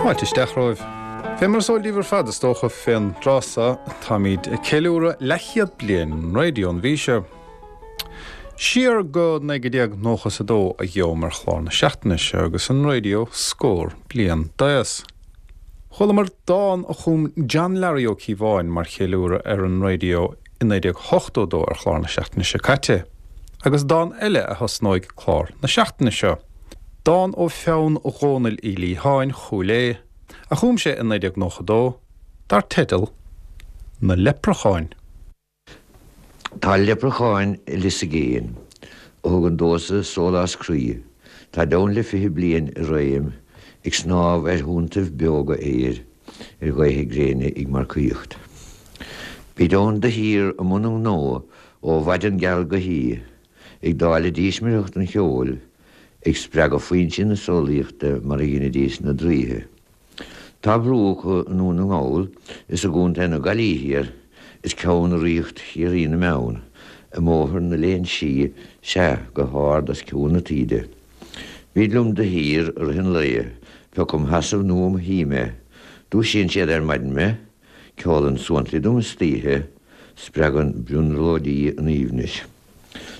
Fáilte isteach romhaibh. Fé mar is eol daoibh ar fad, is dócha, fén dtráth so, táimíd ag ceiliúradh leathchéad bliain an raidió an mhí seo. Siar go 1992 a gheobham ar chlár na seachtaine seo agus an raidió scór bliain d'aos. Chualamar dán a chum John Larry Ó Cíobháin mar cheiliúradh ar an raidió i 1982 ar chlár na seachtaine seo caite, agus dán eile a thosnóidh clár na seachtaine seo. Dán ó pheann Dhónaill Uí Liatháin, Chúil Aodha, a chum sé i 1992, dar teideal 'Na Leipreacháin'. Tá leipreacháin i lios i gcéin, a thugann domhsa sólás croí, táid ann le 20 bliain i réim, ag snámh ar thonntaibh beoga aeir, ar ghaotha gréine ag marcaíocht. Bíd ann de shíor i mbun a ngnó ó mhaidean geal go hoíche, ag dáileadh dísmireacht an cheoil, ag spreagadh foinsí na samhlaíochta mar a dheinidís na draoithe. Tá brú acu i nDún na nGall is i gContae na Gaillimhe thiar is ceann i ríocht Chiarraí na mBeann, i mBóthar na Léinsí, sea, go hard os cionn na taoide. Bíd liom de shíor i rith an lae, pé acu im sheasamh nó im shuí mé. Dúisíonn siad ar maidin mé, ceolann suantraí dom istoíche, spreagann brionglóidí an aoibhnis.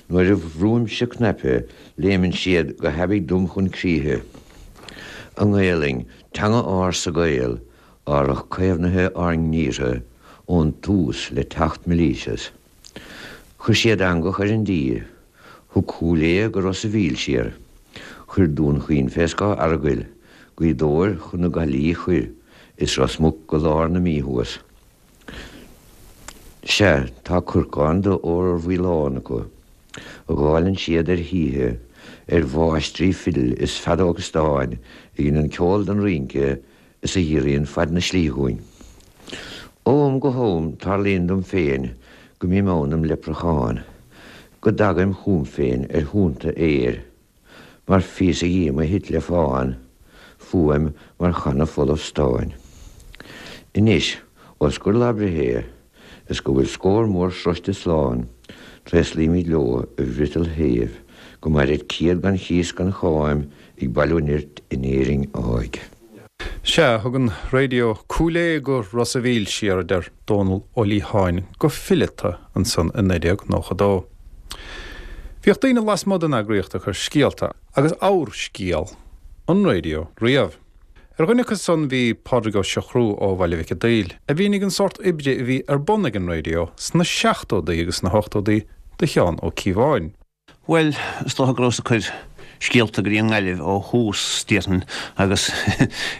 Nuair a bhrúimse cnaipe, léimeann siad go haibidh dom chun críche. An Ghaelainn, teanga ársa Gael, árach caomhnaithe ár ngníortha ón tús le teacht Milesius. Chuir siad eangach ar an dtír, thug Cúil Aodha go Ros a' Mhíl siar, chuir Dún Chaoin fé scáth Earagail, Gaoth Dobhair chun na Gaillimhe chuir, is Ros Muc go lár na Mí thuas. Sea, tá corcán d'ór mhaolán acu, a dháileann siad ar thithe, ar mháistrí fidil is feadóga stáin a dheineann ceol don rince is a ghiorraíonn fad na slí dhúinn. Ó am go ham tarlaíonn dom féin go mbím ann im leipreachán, go dtagaim chugam féin ar thonnta aeir. Mar phíosa dhíom a thit le fán, fuaim mar channa folamh stáin. Anois, ós gur lá breithe é, is go bhfuil scór mór sroiste slán, tréaslaímid leo i bhfriotal shéimh, go mairid 100 gan chíos gan cháim ag bailiú nirt in Éirinn áidh. Sea, thug an raidió Cúil Aodha go Ros a' Mhíl siar, a deir Dónall Ó Liatháin go fileata ansan i 1992. Bhíodh daoine lasmuigh den eagraíocht ag cur scéalta agus abhar-scéal an raidió riamh. Ar dhuine acu san bhí Pádraig Ó Siochrú ó Bhaile Mhic a' Daoil, a mhínigh an sórt oibre a bhí ar bun ag an raidió sna seachtódaí agus sna hochtódaí do Sheán Ó Cíobháin. Bhuel, is dócha go rabhas ag cur scéalta go dtí an nGaillimh ó thús, déarfainn, agus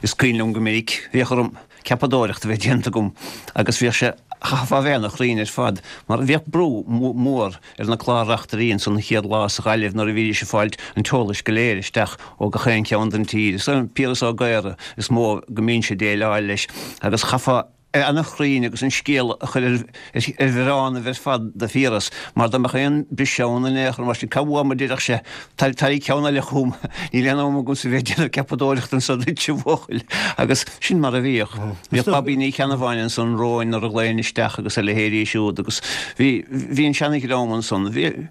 is cuimhin liom go minic, bhíodh orm ceapadóireacht a bheith déanta agam agus bhíodh sé, chaithfeá a bheith ana-chruinn ar fad, mar bhíodh brú mór ar na clár-reachtairí ansan an chéad lá sa Ghaillimh nuair a bhídís ag fáilt an t-eolais go léir isteach ó gach aon cheann den tír. Is é Piaras Ó Gaora is mó go mbínnse ag déileáil leis agus chaithfeá, ana-chruinn agus an scéal a chur ar bhioránnaibh ar fad do Phiaras, mar dá mbeadh aon briseadh ann in aon chor mar sin, cá bhfuaim a déarfadh sé, tar ceann eile chugam, níl aon am agamsa bheith ag déanamh ceapadóireachta anso duit, a bhuachaill. Agus sin mar a bhíodh. Bhíodh Babaí Ní Cheannabháin ansan romhainn nuair a ghlaoinn isteach agus a leithéidí siúd agus bhí, bhí an seana-dhream ansan. Bhí,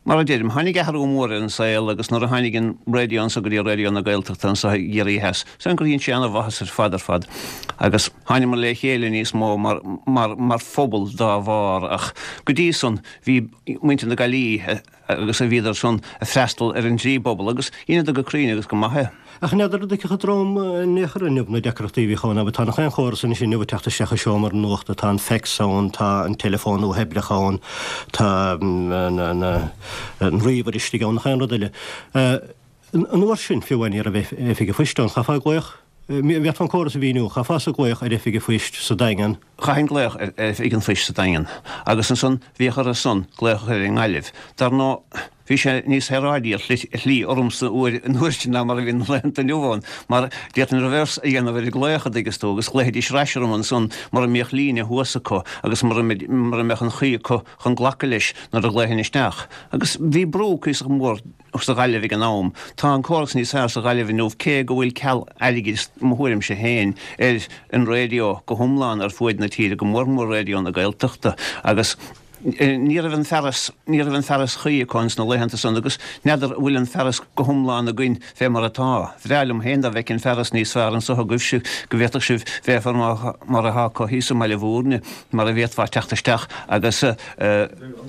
Mar a deirim, tháinig athrú mór ar an saol agus nuair a tháinig an raidió anso go dtí Raidió na Gaeltachta anso i gCiarraí Theas, is gur dhein sé ana-mhaitheas ar fad ar fad agus thánamar le chéile níos mó mar, mar, mar phobal dá bharr ach go dtí san bhí muintir na Gaillimhe agus a bhíodar san ag freastal ar an dtrí bpobal agus dheineadar go cruinn agus go maith é. Ach n'fheadar an dtuigfeadh an dream in aon chor inniu na deacrachtaí a bhíodh ann, abair, tá nach aon chóras anois inniu ag teacht isteach i seomra nuachta, tá an fax ann, tá an teileafón uathoibreach ann, tá an ríomhaire istigh ann, nach aon rud eile. An uair sin, fiú amháin, ní raibh oifig an phoist ann, chaithfeá glaoch, bhféadfá an córas a mhíniú, chaithfeása glaoch ar oifig an phoist sa Daingean. Chaithfinn glaoch ar oifig an phoist sa Daingean agus ansan bhíodh orthu san glaoch a chur ar an nGaillimh. Dar ndóigh, Bhí sé níos saoráidí ar shlí ormsa an uair sin ná mar a bhíonn na laethanta inniu ann, mar d'fhéadfainn reverse a dhéanamh ar an ghlaoch, a dtuigeas tú, agus ghlaofaidís ar ais orm ansan mura mbíodh líne thuas acu agus mura mbeadh an chaoi acu chun glacadh leis nuair a ghlaofainn isteach. Agus bhí brú cuíosach mór sa Ghaillimh ag an am. Tá an córas níos fearr sa Ghaillimh inniu cé go bhfuil ceal airgid, i mo thuairimse féin, ar an raidió go hiomlán ar fuaid na tíre, go mór mór Raidió na Gaeltachta. Agus. Ní raibh an fearas, ní raibh an fearas chuí acu ins na laethanta san agus n'fheadar an bhfuil an fearas go hiomlán againn fé mar atá. Bhreá liom féin dá bhfeicfinn fearas níos fearr anso agaibhse, go bhféadfadh sibh bheith mar atá acu thíos i mBaile Bhúirne, mar a bhféadfá teacht isteach agus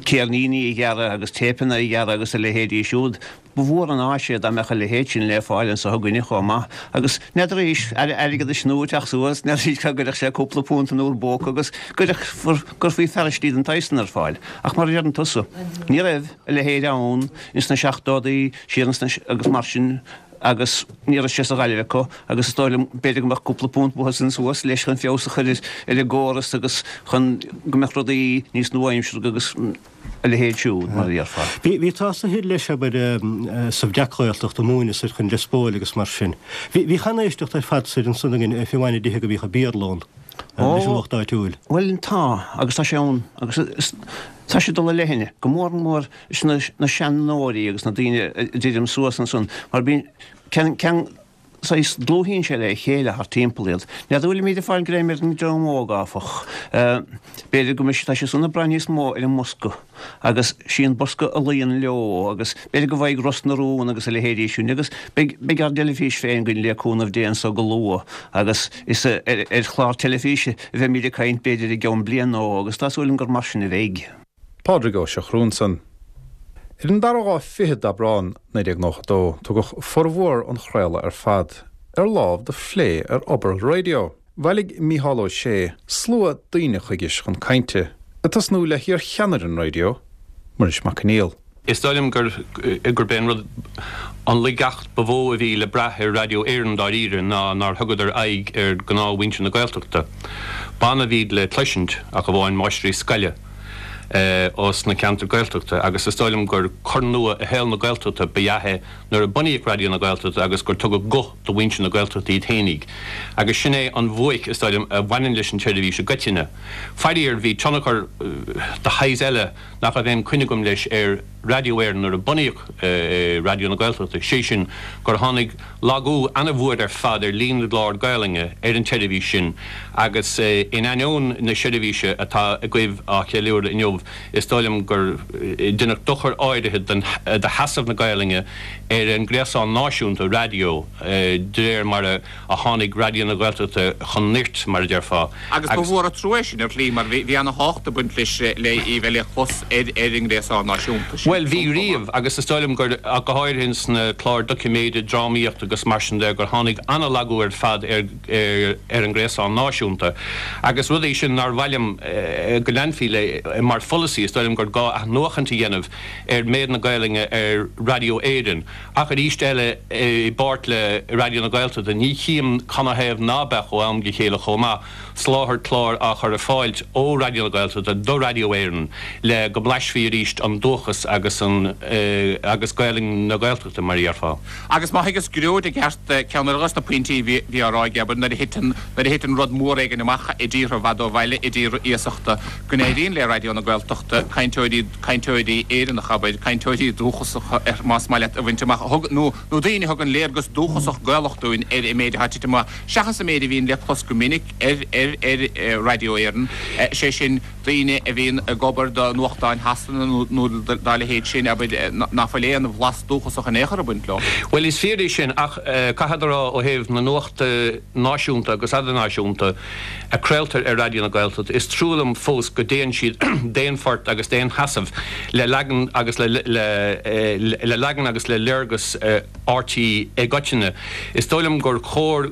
céirníní a ghearradh agus téipeanna a ghearradh agus a leithéidí siúd. Ba mhór an áis é dá mbeadh a leithéid sin le fáil anso againne chomh maith. Agus n'fheadar arís, Aire Airgeadais nua ag teacht suas, n'fheadar arís cá gcuirfeadh sé cúpla punt in bhur bpóca agus gcuirfí fearaistí den tsaghas san ar fáil. Ach mar a deireann tusa, ní raibh a leithéid ann ins na seachtódaí, siar ins na, agus mar sin, agus ní raibh sé sa Ghaillimh acu agus is dóigh liom, b'fhéidir go mbeadh cúpla punt uathu san suas leis chun feabhas a chur ar an gcóras agus chun go mbeadh rudaí níos nua-aimseartha agus. a leithéid siúd, mar a déarfá. Bhí tusa thoir leis, abair, sa Bhreac-Ghaeltacht ag múineadh soir chun Lios Póil agus mar sin. Bhí, bhíodh an-éisteacht ar fad soir ansan againn, fiú amháin i dtithe go mbíodh an Béarla ann, leis an lucht áitiúil. Bhuel, tá, agus tá sé ann, agus is, tá sé ag dul i leithne, go mór mór leis na, na seanóirí agus na daoine a deirim suas ansan, mar bíonn, ceann, ceann, saghas, dlúthaíonn sé le chéile thart timpeall iad. N'fheadar an bhfuilimid ag fáil greim ar an dream óg, áfach. B'fhéidir go mbeidh, tá siad san ag brath níos mó ar an mbosca agus sí an bosca a luíonn leo agus b'fhéidir go bhfaighidh Ros na Rún agus a leithéidí sin agus beidh, beidh ár dteilifís féin againn le cúnamh Dé anso go luath agus is ar chlár teilifíse a bheimid ag caint b'fhéidir i gceann bliain nó agus tá súil agam gur mar sin a bheidh. Pádraig Ó Siochrú ansan. Ar an dara lá fichead d'Aibreán, 1992, tugadh formhór an chraoladh ar fad ar lámh do phlé ar obair an raidió. Bhailigh Mícheál Ó Sé slua daoine chuige chun cainte, ag tosnú le hiar-cheannaire an raidió, Muiris Mac Conghail. Is dóigh liom gurb é an rud, an laigeacht ba mhó a bhí le brath ar Raidió Éireann dáiríre ná nár thugadar aghaidh ar ghnáthmhuintir na Gaeltachta. B'annamh a bhíd le cloisint, ach amháin máistrí scoile ós na ceantair Gaeltachta agus is dóigh liom gur cor nua i shaol na Gaeltachta ba ea é nuair a bunaíodh Raidió na Gaeltachta agus gur tugadh guth do mhuintir na Gaeltachta iad fhéinig. Agus sin é an bhuaic, is dóigh liom, a bhaineann leis an tseirbhís i gcoitinne. Faraor, bhí tionchar de shaghas eile, nach raibh aon coinne agam leis ar Raidió Éireann nuair a bunaíodh Raidió na Gaeltachta, sé sin gur tháinig lagú ana-mhór ar fad ar líon na gclár Gaelainne ar an tseirbhís sin agus in ainneoin na seirbhíse atá agaibh á cheiliúradh inniu is dóigh liom gur deineadh dochar áirithe do sheasamh na Gaelainne ar an ngréasán náisiúnta raidió de réir mar a a tháinig Raidió na Gaeltachta chun nirt, mar a déarfá. Agus ba mhór an trua é sin, ar shlí, mar bhí ana-thábhacht ag baint leis, le í bheith le clos ar ar an ngréasán náisiúnta sin. Bhuel, bhí riamh, agus is dóigh liom gur, ach go háirithe ins na cláir doiciméide, drámaíochta agus mar sin de, gur tháinig ana-lagú ar fad ar ar an ngréasán náisiúnta. Agus rud é sin nár mhaith liom go leanfaí le mar pholasaí, is dóigh liom gur gá athnuachaint a dhéanamh ar méid na Gaelainne ar Raidió Éireann. Ach arís eile, i bpáirt le Raidió na Gaeltachta, ní chím canathaobh ná beadh ó am go chéile chomh maith, soláthar clár á chur ar fáilt ó Raidió na Gaeltachta do Raidió Éireann le go mblaisfí arís an dúchas agus an agus Gaelainn na Gaeltachta, mar a dhéarfá. Agus má thuigeas Gearóid i gceart, ceann eile dos na pointí a bhí á rá aige, abair, nuair a thiteann nuair a thiteann rud mór éigin amach i dtíortha i bhfad ó bhaile, i dtíortha iasachta, go n-éiríonn le Raidió na Gaeltachta cainteoirí cainteoirí Éireannacha, abair, cainteoirí dúchasacha, más maith leat, a bhaint amach, a thug, nó, nó daoine a thugann léargas dúchasach Gaelach dúinn ar an méid atá ag titim amach, seachas an méid a bhíonn le clos go minic ar, ar, ar Raidió Éireann, sé sin, daoine a bhíonn ag obair do nuachtáin Shasana nó, nó dá leithéid sin, abair, ná fuil aon bhlas dúchasach in aon chor ag baint leo. Bhuel, is fíor é sin, ach caithfead a rá, ó thaobh na nuachta náisiúnta agus eadarnáisiúnta, a craoltar ar Raidió na Gaeltachta, is trua liom fós go dtéann siad d'aon phort agus d'aon sheasamh le leagan agus le le leagan agus le léargas RTÉ i gcoitinne. Is dóigh liom gur chóir,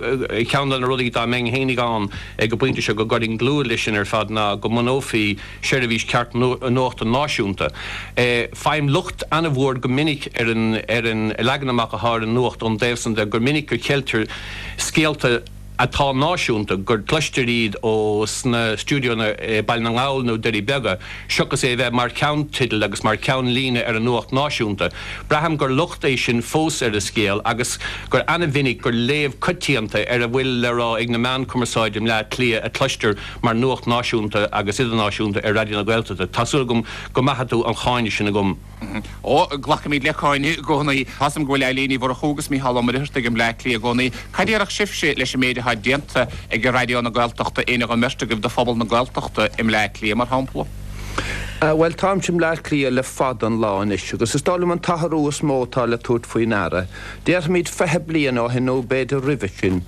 ceann de na rudaí dá mbeinn fhéinig ann ag an bpointe seo go gcuirfinn dlúth leis sin ar fad ná go mbunófaí seirbhís ceart nuachta náisiúnta. Faighim locht an-mhór go minic ar an ar an leagan amach atá ar an nuacht ón dtaobh san de gur minic go cheiltear scéalta atá náisiúnta, gur cloistear iad ó sna stiúideonna i Baile na nGall nó Doirí Beaga, seachas é a bheith mar cheannteideal agus mar cheannlíne ar an nuacht náisiúnta. Braithim gur locht é sin fós ar an scéal agus gur ana-mhinic gur léamh coitianta ar a bhfuil le rá ag na meáin cumarsáide i mBleá Cliath a cloistear mar nuacht náisiúnta agus idirnáisiúnta ar Raidió na Gaeltachta. Tá súil agam go maithfidh tú an cháineadh sin agam. Ó, glacaimid le cáineadh i gcónaí. Tá 'fhios a'm go bhfuil Eilín Ní Mhurchú agus Mícheál Ó Muircheartaigh i mBleá Cliath i gcónaí. Cad déarfadh sibhse leis an méid atá déanta ag Raidió na Gaeltachta, éinne den mbeirt agaibh, do phobal na Gaeltachta i mBleá Cliath, mar shampla? Bhuel, táimse i mBleá Cliath le fada an lá anois agus is dóigh liom an t-athrú is mó atá le tabhairt faoi ndeara, déarfaimid 20 bliain ó shin nó b'fhéidir roimhe sin,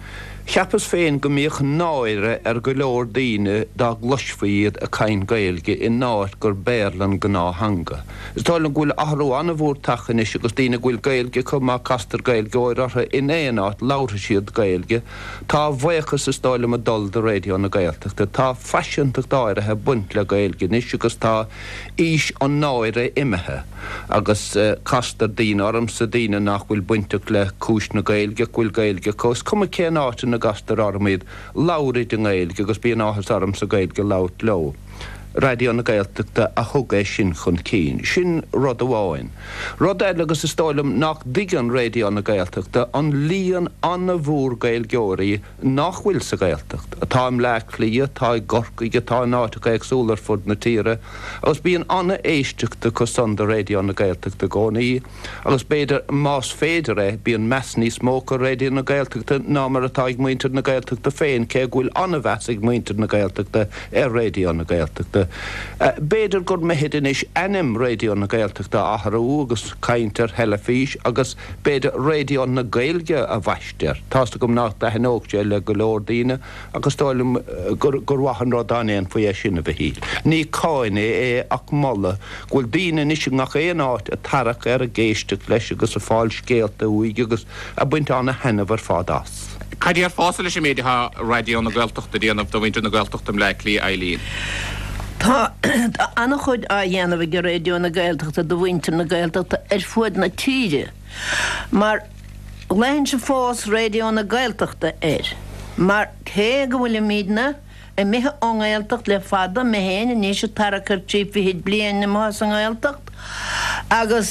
cheapas féin go mbíodh náire ar go leor daoine dá gcloisfí iad ag caint Gaeilge in áit gur Béarla an gnáth-theanga. Is dóigh liom go bhfuil athrú an-mhór tagtha anois agus daoine go bhfuil Gaeilge acu, má castar Gaeilgeoir orthu in aon áit, labharfaidh siad Gaeilge. Tá a bhuíochas is dóigh liom ag dul do Raidió na Gaeltachta. Tá faiseantacht áirithe ag baint le Gaeilge anois agus tá aois an náire imithe agus castar daoine ormsa, daoine nach bhfuil bainteach le cúis na Gaeilge ach go bhfuil Gaeilge acu. Is cuma cén áit ina gcastar orm iad, labhraid i nGaeilge agus bíonn áthas ormsa Gaeilge a labhairt leo. Raidió na Gaeltachta a thug é sin chun cinn. Sin rud amháin. Rud eile, agus is dóigh liom nach dtuigeann Raidió na Gaeltachta an líon an-mhór Gaeilgeoirí nach bhfuil sa Ghaeltacht, atá i mBleá Cliath, atá i gCorcaigh, atá in áiteacha éagsúla ar fud na tíre, agus bíonn an-éisteacht acu san do Raidió na Gaeltachta i gcónaí. Agus b'fhéidir, más féidir é, bíonn meas níos mó acu ar Raidió na Gaeltachta ná mar atá ag muintir na Gaeltachta féin, cé go bhfuil an-mheas ag muintir na Gaeltachta ar Raidió na Gaeltachta. B'fhéidir gur mithid anois ainm Raidió na Gaeltachta a athrú agus caint ar theilifís agus b'fhéidir Raidió na Gaeilge a bhaisteadh air. Tá's agam nach dtaitneodh sé le go leor daoine ach is dóigh liom gur mhaith an rud dá ndéanfaí é sin, a Mhichíl. Ní cáineadh é ach moladh go bhfuil daoine anois i ngach aon áit ag tarrac air, ag éisteacht leis agus ag fáil scéalta uaidh agus ag baint ana-thaitneamh ar fad as. Cad déarfása leis an méid atá Raidió na Gaeltachta a déanamh do mhuintir na Gaeltachta i mBleá Cliath, Eileen? Tá an-chuid á dhéanamh ag Raidió na Gaeltachta do mhuintir na Gaeltachta ar fuaid na tíre mar ghlaoinnse fós Raidió na Gaeltachta air mar cé go bhfuilimidne imithe ón nGaeltacht le fada, mé féin anois ag tarrac ar thrí fichid bliain amuigh as an nGaeltacht agus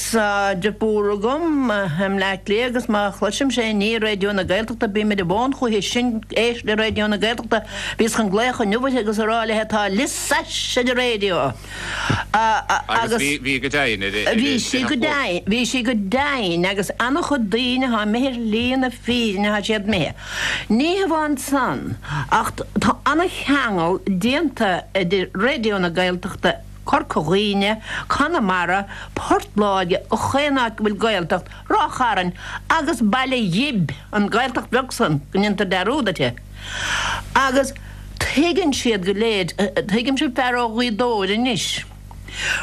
deirfiúr agam i mBleá Cliath agus má chloisimse aon ní ar Raidió na Gaeltachta bím ar an bhfón chúithi sin éist le Raidió na Gaeltachta. Bhíos chun glaoch inniu uirthi agus a rá léi tá Lios Ais ar an raidió agus bhí go deimhin ar Bhí sí go deimhin, bhí sí go deimhin agus an-chuid daoine atá imithe ar shlí na fírinne tá siad imithe. Ní hamháin san, ach tá an-cheangal déanta idir Raidió na Gaeltachta, Corca Dhuibhne, Conamara, Port Láirge, chaon áit go bhfuil Gaeltacht, Ráth Chairn agus Baile Ghib, an Ghaeltacht bheag san go ndéantar dearúd uirthi. Agus tuigeann siad go léir, tuigimse fear ó Ghaoth Dobhair anois,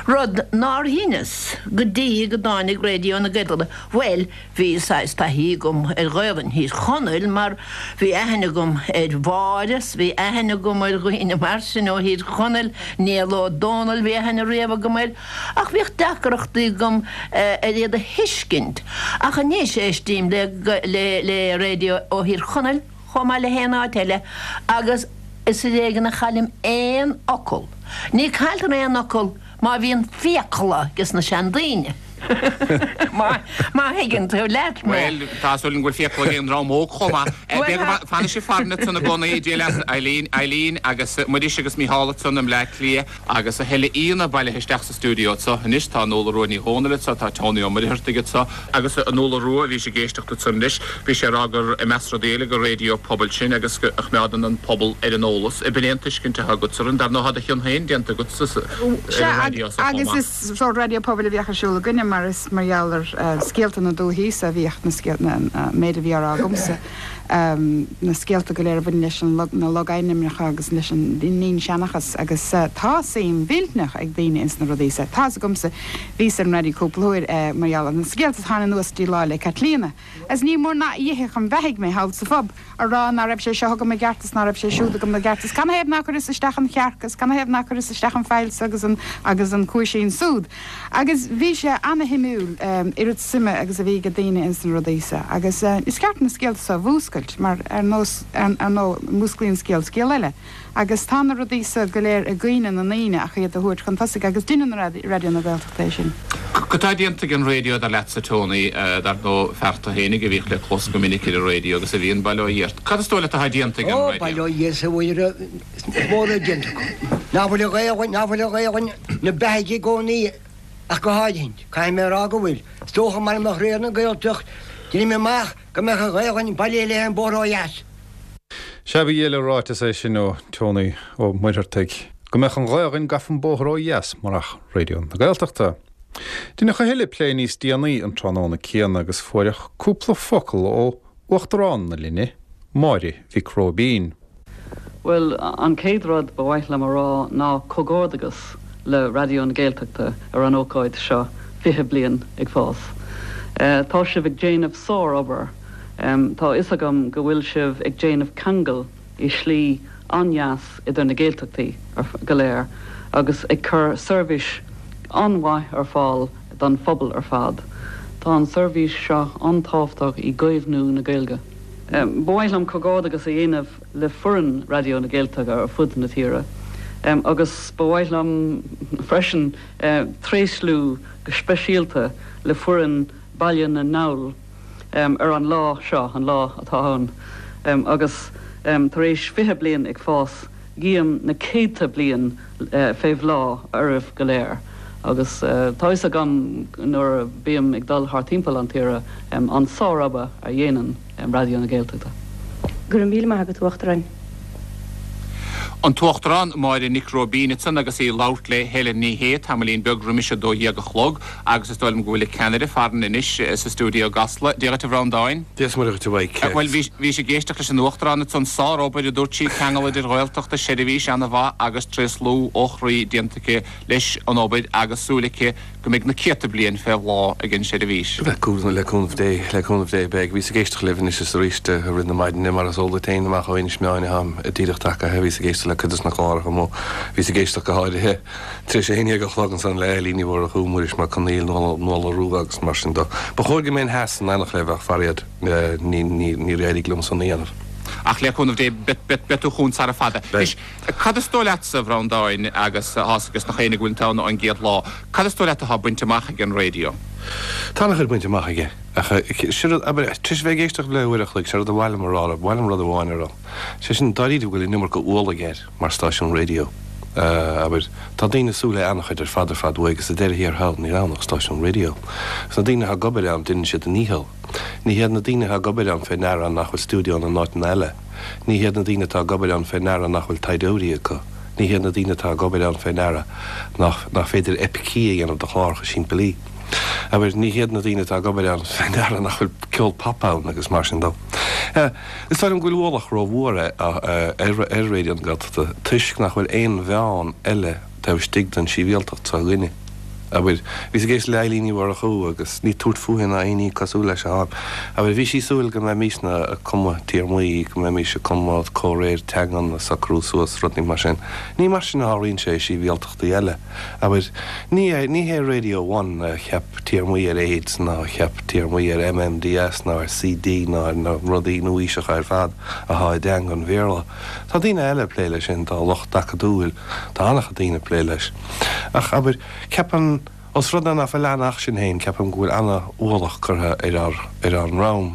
rud nár dheineas go dtí go dtáinig Raidió na Gaeltachta, bhuel, Bhí saghas taithí agam ar Ghaelainn Thír Chonaill mar bhí aithne agam ar Mháire 's bhí aithne agam ar dhaoine mar sin ó Thír Chonaill, Niall Ó Dónaill bhí aithne riamh agam air ach bhíodh deacrachtaí agam ar iad a thuiscint. Ach anois éistím le le raidió ó Thír Chonaill chomh maith le haon áit eile agus is ar éigean a chaillim aon fhocal. Ní cailltear aon fhocal má bhíonn fiacla ages na seandaoine. Má thuigeann tú leat mé. Bhuel, tá súil agam go bhfuil fiacla ag an dream óg chomh maith. Fanfaidh sibh farainn ansan i gcónaí, Dia leat, Eileen, Eileen agus Muiris agus Mícheál ansan i mBleá Cliath agus a thuilleadh aíonna bailithe isteach sa stiúideo anso anois. Tá Nuala Rua Ní Dhomhnaill anso, tá Tony Ó Muircheartaigh anso agus Nuala Rua, bhís ag éisteacht ansan anois, bhí sé ag rá gur, i measc rudaí eile, gur raidió pobail sinn agus go a choimeádann an pobal ar an eolas. Ab in é an tuiscint atá agatsa orainn? Dar ndóigh tá do chion féin déanta agat ar an raidió so chomh maith. Is sórt raidió pobail a bhíodh ar siúl againne mar is mar gheall ar scéalta na dúichí so a bhíodh na scéalta, an méid a bhí á rá agamsa, na scéalta go léir a bhain leis an na logainmneacha agus leis an dinnseanchas agus tá suim mhillteanach ag daoine ins na rudaí so. Tá's agamsa, bhíos ar an raidió cúpla huair mar gheall ar na scéalta a tháinig anuas dtí Lá 'le Caitlíona agus ní mór ná dh'ithfeadh an bheathaidh mé thall sa phub. a rá ná raibh sé seo agam i gceart is ná raibh sé siúd agam i gceart is canathaobh ná cuireas isteach an chearc is canathaobh ná cuireas isteach an faill so agus an agus an cuaisín súd. Agus bhí sé ana-shuimiúil oiread suime agus a bhí ag daoine ins na rudaí so agus is ceart na scéalta so a mhúscailt mar ar nós ar ndóigh músclaíonn scéal scéal eile. Agus tá na rudaí so go léir i gcuimhne na ndaoine ach iad a thabhairt chun tosaigh agus deineann Raidió na Gaeltachta é sin. Cad tá déanta ag an raidió dar leatsa Tony, dar ndóigh fear tú fhéinig a bhíodh le clos go minic ar an raidió agus a bhí in Baile Ó Dhiart. Cad is dóigh leat atá déanta ag an raidió? Ó, Baile ó Dhia is a Mhuire, is mór atá déanta acu. Ná fuil an Ghaelainn, ná fuil an Ghaelainn 'na beathaidh i gcónaí ach go háirithint. Caithfidh mé a rá go bhfuil. Is dócha mara mbeadh Raidió na Gaeltacht, deinim amach go mbeadh an Ghaelainn bailithe léi an bóthar ó dheas. Sea, ba dhiail an ráiteas é sin ó Tony Ó Muircheartaigh. Go mbeadh an Ghaelainn gafa an bóthar ó dheas murach Raidió na Gaeltachta. Deineadh a thuilleadh plé níos déanaí an tráthnóna céanna agus fuaireadh cúpla focal ó Uachtarán na linne, Máire Mhic Róibín. Bhuel, an chéad rud ba mhaith liom a rá ná comhghairdeachas le Raidió na Gaeltachta ar an ócáid seo, 20 bliain ag fás. Tá sibh ag déanamh sár-obair. Tá a fhios agam go bhfuil sibh ag déanamh ceangal i slí an-deas idir na Gaeltachtaí go léir agus ag cur seirbhís an-mhaith ar fáil don phobal ar fad. Tá an seirbhís seo an-tábhachtach i gcaomhnú na Gaeilge. Ba mhaith liom comhghairdeachas a dhéanamh le foireann Raidió na Gaeltachta ar fud na tíre agus ba mhaith liom freisin tréaslú go speisialta le foireann Baile na nGall ar an lá seo, an lá atá ann agus tar éis 20 bliain ag fás. Guím na céadta bliain fé bhláth oraibh go léir agus tá fhios agam nuair a bím ag dul thart timpeall an tíre an sár-obair a dhéanann Raidió na Gaeltachta. Go raibh míle maith agat, a Uachtaráin. An tUachtarán Máire Nic Róibín ansan agus í ag labhairt le Helen Ní Shé tamaillín beag roimis a 12 a chlog agus is dóigh liom go bhfuil an ceannaire farainn anois sa stiúideo i gCasla. Dia dhuit a Bhreandáin. Dia is Muire dhuit a Mhaidhc. Bhuel, bhís ag éisteacht leis an Uachtarán ansan, sár-obair a dúirt sí, ceangal idir Ghaeltachta, seirbhís ana-mhaith agus tréaslú ó chroí déanta aici leis an obair agus súil aici go mbeidh na céadta bliain fé bhláth ag an seirbhís. Le cúnamh Dé, le cúnamh Dé, beidh. Bhíos ag éisteacht libh anois is arís i rith na maidine, mar is eol duit féin, amach ó Inis Meáin atáim díreach tagaithe. Bhíos ag éisteacht le cuid des na cláracha amuigh. Bhíos ag éisteacht go háirithe tar éis a haon dhéag a chlog ansan le Eilín Ní Mhurchú, Muiris Mac Conaill, Nuala Rua agus mar sin de. Ba chóir go mbeinn theas in éineacht libh ach faraor níor éirigh liom san a dhéanamh. Ach le cúnamh Dé, beidh tú chugainn sara fada. Beidh. Cad is dóigh leatsa, a Bhreandáin, agus tá's ages nach éinne go bhfuil tú ann ón gcéad lá, cad is dóigh leat atá bainte amach ag an raidió? Tá an-chuid bainte amach aige, ach sé rud, abair, tar éis a bheith ag éisteacht le uair a chloig, sé rud a ba mhaith liom a rá, ba mhaith liom rud amháin a rá, sé sin, dáiríre go bhfuil an iomarca ualaigh air mar stáisiún raidió. Abair, tá daoine ag súil le an-chuid ar fad ar fad uaidh agus sa deireadh thiar thall níl ann ach stáisiún raidió. Agus na daoine atá ag obair ann, déanann siad a ndícheall. Ní hiad na daoine atá ag obair ann fé ndeara nach bhfuil stiúideónna in áiteanna eile. Ní hiad na daoine atá ag obair ann fé ndeara nach bhfuil taighdeoirí acu. Ní hiad na daoine atá ag obair ann fé ndeara nach nach féidir eipicí a dhéanamh de chláracha simplí. Abair, ní hiad na daoine atá ag obair ann fé ndeara nach bhfuil ceol pop ann agus mar sin dó. Is dóigh liom go bhfuil ualach rómhór ar ar Raidió na Gaeltachta toisc nach bhfuil aon mheán eile taobh istigh den tsibhialtacht seo againne. Abair, bhíos ag éisteacht le Eilín Ní Mhurchú agus ní tabhairt fúithi ná aon ní cosúil leis atáim. Abair, bhí sí ag súil go mbeimisne ag cumadh téarmaí, go mbeimis ag cumadh comhréir teangan a socrú suas, rudaí mar sin. Ní mar sin a tharlaíonn sé i sibhialtachtaí eile. Abair, ní ní hé Radio One a cheap téarmaí ar AIDS ná a cheap téarmaí ar MMDS ná ar CD ná ar na rudaí nua-aoiseacha ar fad athá i dteanga an Bhéarla. Tá daoine eile ag plé leis sin, tá lucht acadúil, tá an-chuid daoine ag plé leis. Ach, abair, ceapaim, os rud é ná fuil ann ach sinn féin, ceapaim go bhfuil ana-ualach curtha ar ár, ar ár ndroim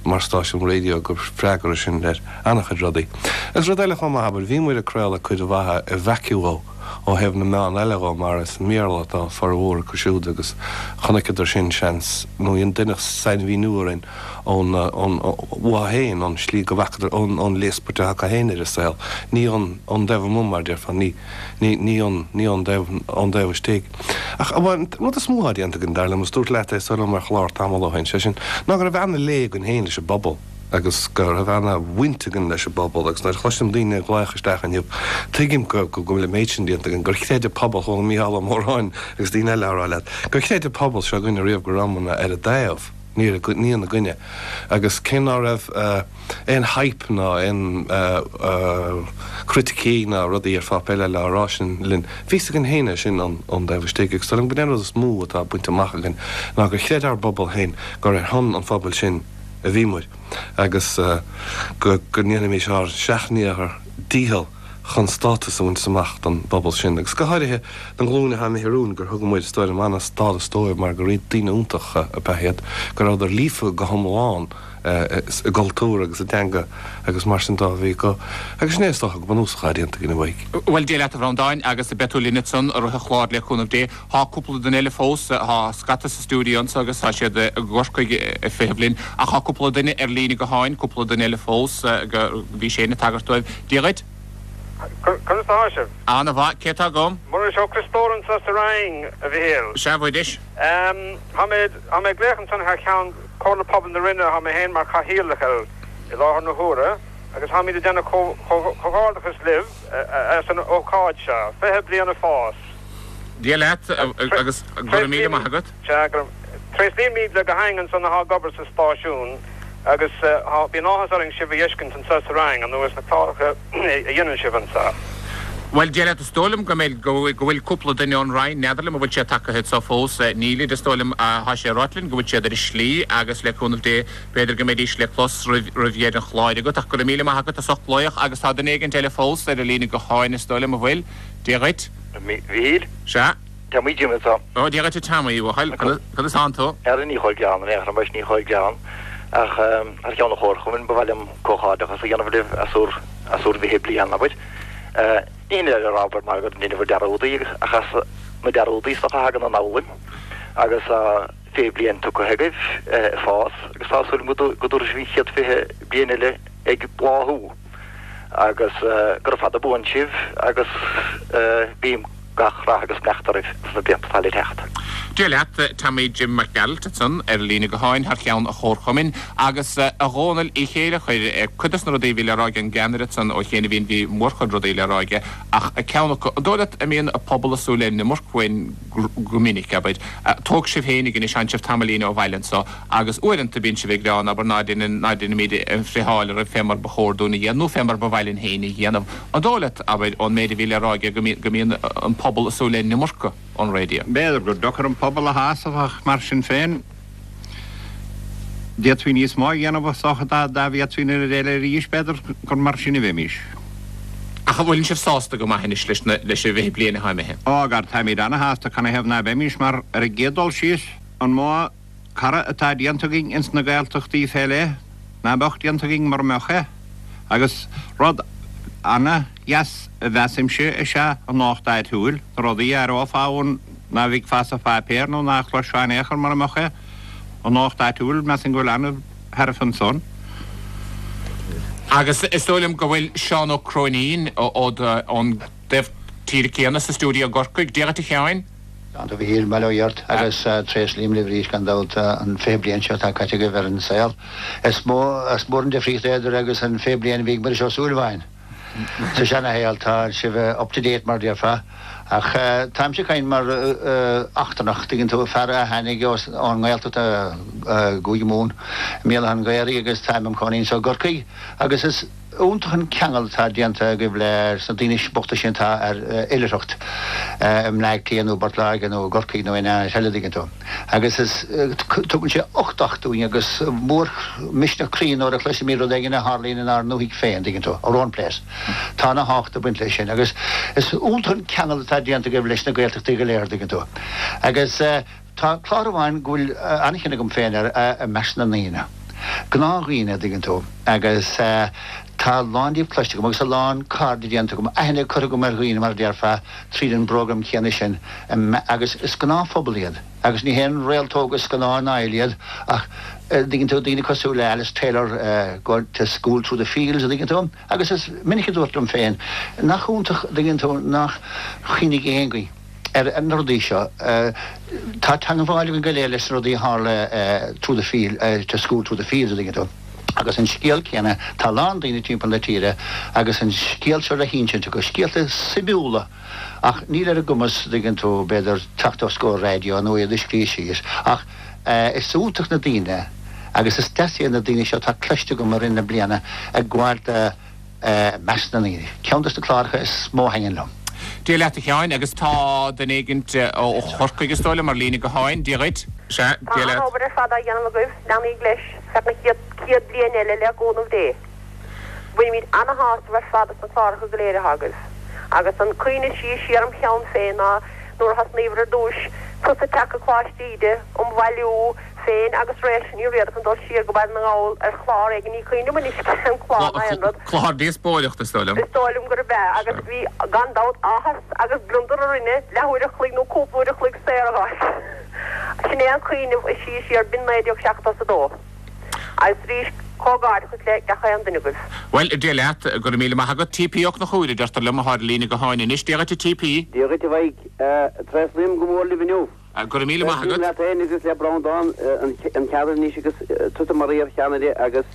mar stáisiún raidió gur freagra sinn ar ana-chuid rudaí. Agus rud eile chomh maith, abair, bhí muid ag craoladh cuid mhaith i vacuo ó thaobh na meán eile dhó mar is i mBéarla atá formhór acu siúd agus chonaiceadar sin, seans, nó deineadh sainmhíniú orainn ón, ón, uathu féin, ón slí go bhfacadar, ón, ón léaspairt atá acu féin ar an saol, ní ón, ón dtaobh amuigh mar a déarfá, ní. Ní, ní ón, ní ón dtaobh, ón dtaobh istigh. Ach, bhuel, an rud is mó atá déanta againn, dar liom, is dúrt leat é is dóigh liom ar chlár tamall ó shin, sé sin, ná go raibh ana-lé againn féin leis an bpobal agus go raibh ana-bhaint againn leis an bpobal agus nuair a chloisim daoine ag glaoch isteach inniu, tuigim go, go, go bhfuil an méid sin déanta againn, gur chreid an pobal, chuala Mícheál Ó Móráin agus daoine eile á rá leat, gur chreid an pobal seo againne riamh go rabhamarna ar a dtaobh, ní ar a, ní ina gcoinne. Agus cé ná raibh. aon hype ná aon chriticí ná rudaí ar pháipéar eile á rá sin linn. Bhí fhios againn féin é sin ón dtaobh istigh agus dóigh liom gurb é an rud is mó atá bainte amach againn ná gur chreid ár bpobal féin gur ar shon an phobail sin a bhí muid agus go ndéanfaimis ár seacht ndícheall chun stádas a bhaint amach don bpobal sin agus go háirithe don ghlúin atá imithe romhainn gur thug muid, is dóigh liom, an-stádas dóibh mar gur daoine iontacha ab ea iad, go rabhadar líofa go hiomlán. i gcultúr agus i dteanga agus mar sin dó a bhí acu. Agus sin é is dócha go bunúsach atá déanta againn a Mhaidhc. Bhuel, Dia leat a Bhreandáin, agus beidh tú linn ansan i rith an chláir le cúnamh Dé. Tá cúpla duine eile fós, tá scata sa stiúideo anso agus tá siad i gCorcaigh ag feitheamh linn, ach tá cúpla duine ar líne gutháin, cúpla duine eile fós, go, bhí Shane ag tagairt dóibh. Dia dhuit. Conas atá sibh? Ana-mhaith. Cé atá agam? Muiris Ó Criostóir anseo sa Rinn, a Mhichíl. Sea, a Mhuiris. Tá mé, tá mé ag glaoch ansan thar cheann Comhairle Pobail na Rinne, tá mé féin mar chathaoirleach air i láthair na huaire, agus táimid ag déanamh comhghairdeachas libh as an ócáid seo, 20 bliain ag fás. Dia leat agus go raibh míle maith agat. Sea, go raibh. Tréaslaímid le gach éinne ansan atá ag obair sa stáisiún agus bíonn áthas orainn sibh a fheiscint anseo sa Rinn anuas na cláracha a dhéanann sibh anseo. Bhuel, Dia leat, is dóigh liom go mbeidh, go bhfuil cúpla duine ón Rinn, n'fheadar liom an bhfuil siad tagtha anseo fós, nílid, is dóigh liom, tá sé ráite linn go bhfuil siad ar a slí agus le cúnamh Dé b'fhéidir go mbeidís le clos roimh, roimh dheireadh an chláir agat ach go raibh míle maith agat as ucht glaoch agus tá duine éigint eile fós ar an líne gutháin is dóigh liom, an bhfuil? Dia dhuit. A Mhichíl. Sea. Tommy Jim anseo. Ó, Dia dhuit a Tommy, a bhuachaill. Conas tánn tú? Ara ní chomh gearr in aon chor, ní chomh gearr. Ach thar cheann an chomharchumainn, ba mhaith liom comhghairdeachas a dhéanamh libh as bhur, as bhur bhfiche bliain, abair. Ní hin le rá, abair, mar go ndeineadh bhur dearúdaí, ach as na dearúdaí is dócha a thagann an fhoghlaim. Agus tá 20 bliain tugtha agaibh ag fás agus tá súil agam go dtabharfaidh sibh an chéad 20 bliain eile ag bláthú. Agus gura fada buan sibh agus guím gach rath agus beannacht oraibh sna blianta atá le teacht. Dia leat, Tommy Jim Mac Gearailt ansan ar an líne gutháin thar cheann an Chomharchumainn. Agus a Dhónaill Uí Chéilleachair, cuid dos na rudaí a bhí le rá ag an gceannaire ansan ó chianaibhín, bhí mórchuid rudaí le rá aige ach ceann acu, an dóigh leat a mbíonn an pobal ag súil le an iomarca uainn go minic, abair. Tóg sibh féinig anois, tánn sibh tamaillín ó bhaile anso agus uaireanta bíonn sibh ag gearán, abair, ná deineann, ná deinimíd an friotháil oraibh fé mar ba chóir dúinn a dhéanamh nó fé mar ba mhaith linn féin a dhéanamh. An dóigh leat, abair, ón méid a bhí le rá aige, go mbíonn an pobal ag súil le an iomarca ón raidió? B'fhéidir gur deacair an pobal a shásamh ach mar sin féin, d'fhéadfaí níos mó a dhéanamh is dócha dá bhféadfaí an oiread eile arís, b'fhéidir gur mar sin a bheimís. Ach an bhfuileann sibh sásta go maith anois leis na, leis an bhfiche bliain atá imithe? Ó, gar, táimid ana-shásta, canathaobh ná beimis, mar ar an gcéad dul síos, an mó cara atá déanta againn ins na Gaeltachtaí fé leith ná beadh déanta againn mura mbeadh é. Agus rud ana-dheas a mheasaimse is ea an nuacht áitiúil, na rudaí a aireofá ann ná bhfeicfeá sa pháipéar nó ná chloisfeá in aon chor mura mbeadh é. An nuacht áitiúil, measaim go bhfuil ana-thairbhe ansan. Agus is dóigh liom go bhfuil Seán Ó Cróinín ón dtaobh tíre céanna sa stiúideo i gCorcaigh. Dia dhuit a Sheáin. A Mhichíl, bail ó Dhia ort agus tréaslaím libh arís gan dabht an 20 bliain seo atá caite agaibh ar an saol. Is mó is mór an difríocht é idir agus an 20 bliain a bhí ag Muiris Ó Súilleabháin sa seana-shaol. Tá sibh up to date mar a déarfá. Ach táimse ag caint mar eachtrannach, tuigeann tú, fear a tháinig ón nGaeltacht i gCúige Mumhan, i mBéal Átha an Ghaorthaidh agus táim im chónaí anseo i gCorcaigh agus is iontach an ceangal atá déanta agaibh leis na daoine bochta sin atá ar oilithreacht i mBleá Cliath nó i bPort Láirge nó i gCorcaigh nó in aon áit eile, dtuigeann tú. Agus is, tugann sé uchtach dúinn agus mór misneach croí nuair a chloisimid rud éigin a tharlaíonn inár ndúthaigh féin, dtuigeann tú, our own place. Tá ana thábhacht ag baint leis sin agus is iontach an ceangal atá déanta agaibh leis na Gaeltachtaí go léir, dtuigeann tú. Agus. Tá clár amháin go bhfuil an-chion agam féin air, I Measc na nDaoine. Gnáthdhaoine, a dtuigeann tú, agus tá a lán díobh cloiste agam agus a lán cairde déanta agam, aithne curtha agam ar dhaoine, mar a déarfá, tríd an bprógram céanna sin agus is gnáthphobal iad agus ní haon réaltóga scannáin áil iad ach, a dtuigeann tú, daoine cosúil le Alice Taylor, going to school through the fields, a dtuigeann tú, agus is minic a dúirt liom féin, nach iontach, a dtuigeann tú, nach chuimhnigh aon ghaoth. ar na rudaí seo. Tá teangmháil againn go léir leis na rudaí a tharla through the field, to school through the fields, a dtuigeann tú. Agus an scéal céanna, tá a lán daoine timpeall na tíre agus an scéal seo le hinsint acu, scéalta suimiúla ach níl ar a gcumas, a dtuigeann tú, b'fhéidir teacht os comhair raidió nó iad a scríobh síos. Ach is iontach na daoine agus is deas iad na daoine seo atá cloiste agam i rith na bliana ag gabháil do, I measc na ndaoine. Ceann dos na cláracha is mó a thaitníonn liom. Dia leat a Sheáin, agus tá duine éigint ó Chorcaigh is dóigh liom ar líne gutháin. Dia dhuit. Sea, Tá Dia leat. an-obair ar fad á dhéanamh agaibh, leanaíg leis feadh na chéad 100 bliain eile le cúnamh Dé. Bainimid ana-shásamh ar fad as na cláracha go léir atá agaibh. Agus an cuimhne is sia siar im cheann féin ná nuair a thosnaíobhair ar dtúis, tusa ag teacht go Coláiste Íde um bhailiú, féin agus Réalta Ní Riada chun dul siar go Baile na nGall ar chlár éigin, ní cuimhin liom anois cén clár ná aon rud. Clár díospóireachta, is dóigh liom. Is dóigh liom gurb ea, agus bhí, gan dabht, áthas agus gliondar orainne leathuair a chloig nó cúpla uair a chloig saor a fháil. Sin é an cuimhneamh is sia siar, b'in 1972. Agus arís. Comhghairdeachas le gach aon duine agaibh. Bhuel, Dia leat, go raibh míle maith agat. TP Ó Conchúir, a deirtear liom, atá ar líne gutháin anois. Dia dhuit a TP. Dia dhuit a Mhaidhc. Tréaslaím go mór libh inniu. Go raibh míle maith agat. Tréaslaím leat féin agus le Breandán an ceantar anois agus tusa mar iar-cheannaire agus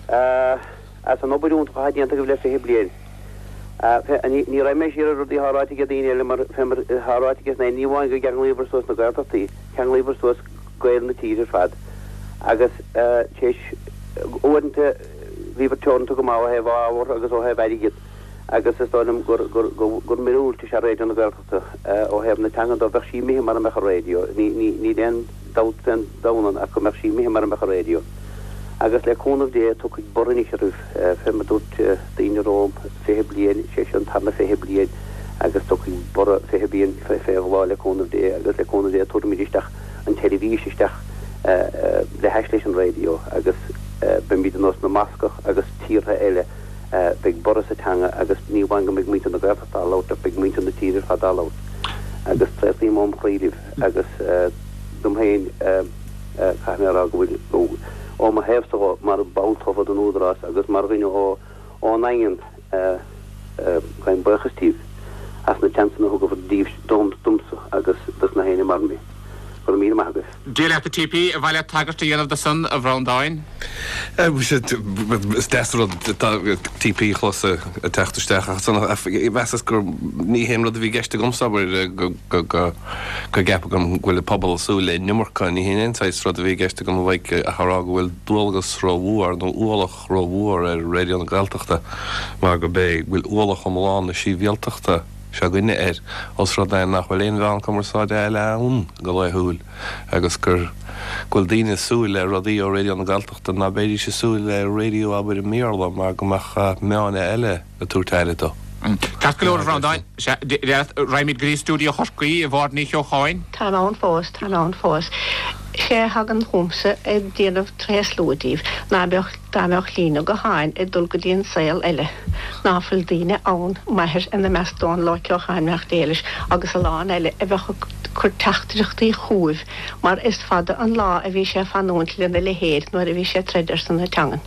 as an obair iontach atá déanta agaibh le 20 bliain. Ní raghaidh mé siar ar rudaí atá ráite ag daoine eile mar fé mar atá ráite aige ní amháin go gceanglaíobhair suas na Gaeltachtaí, cheanglaíobhair suas Gaeil na tíre ar fad agus tar éis uaireanta bhíobhair teoranta go maith ó thaobh ábhar agus ó thaobh airgead agus is dóigh liom gur gur gur míorúilt is ea Raidió na Gaeltachta ó thaobh na teangan dó. Bheadh sí imithe mara mbeadh an raidió, ní ní níl aon dabht fén domhan ann ach go mbeadh sí imithe mara mbeadh an raidió. Agus le cúnamh Dé tiocfaidh borradh anois oraibh fé mar dúirt daoine romham 20 bliain, sé seo an tarna 20 bliain agus tiocfaidh borradh 20 bliain fé bhláth le cúnamh Dé agus le cúnamh Dé tabharfaimid isteach an tseirbhís isteach le hais leis an raidió agus beimid ar nós na mBascach agus tíortha eile, beidh borradh sa teanga agus ní amháin go mbeidh muintir na Gaeltachta á labhairt ach beidh muintir na tíre ar fad á labhairt agus tréaslaím óm chroí libh agus dom féin caithfidh mé a rá go bhfuil ó mo thaobhsa dhó mar ball tofa den Údarás agus mar dhuine ón nDaingean gabhaim buíochas díbh as na seansanna a thugabhair díbh dom domsa agus dos na héinne mar mé. Go raibh míle maith agaibh. Dia leat a TP, ar mhaith leat tagairt a dhéanamh do san, a Bhreandáin? Is deas an rud TP a chlos ag teacht isteach ach mheasas gur ní hé an rud a bhí i gceist agamsa, abair, go gceapadh go bhfuil an pobal ag súil le an iomarca. Ní hin aon saghas rud a bhí i gceist agam a Mhaidhc ach a rá go bhfuil dualgas rómhór nó ualach rómhór ar Raidió na Gaeltachta mar go b'é go bhfuil ualach iomlán na síbhialtachta seo againne air os rud é nach bhfuil aon mheán cumarsáide eile ann go laethúil agus gur go bhfuil daoine ag súil le rudaí ó Raidió na Gaeltachta ná beidís ag súil le raidió abair i mBéarla mar go mbeadh meáin eile ag tabhairt aire dó. Ceart go leor, a Bhreandáin. Sea, raghaimid go dtí stiúideo Chorcaí, a Mháire Ní Cheocháin. Táim ann fós, táim ann fós. Sé a thagann chugamsa ag déanamh tréaslú díbh ná beadh, dá mbeadh líne gutháin ag dul go dtí an saol eile, ná fuil daoine ann, m'athair ina measc Dónal Ó Ceocháin beannacht Dé leis agus a lán eile a bheadh ag cur teachtaireachtaí chugaibh mar is fada an lá a bhí sé ag fanúint lena leithéid nuair a bhí sé ag troid ar son na teangan.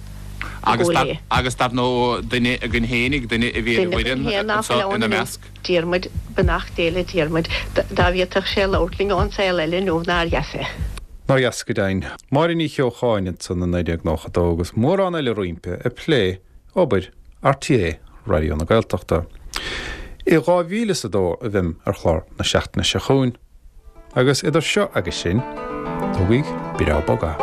Agus dar, agus dar ndóigh duine againn fhéinig, duine a bhí ar an bhfoireann anso ina measc. Diarmuid, beannacht Dé le Diarmuid, dá bhféadfadh sé labhairt linn ón saol eile inniu nár dheas é. Nár dheas go deimhin. Máire Ní Cheocháin ansan i 1992 agus mórán eile roimpi ag plé obair RTÉ Raidió na Gaeltachta. I 2002 a bheim ar chlár na seachtaine seo chugainn. Agus idir seo agus sin, tógaigí breá bog é.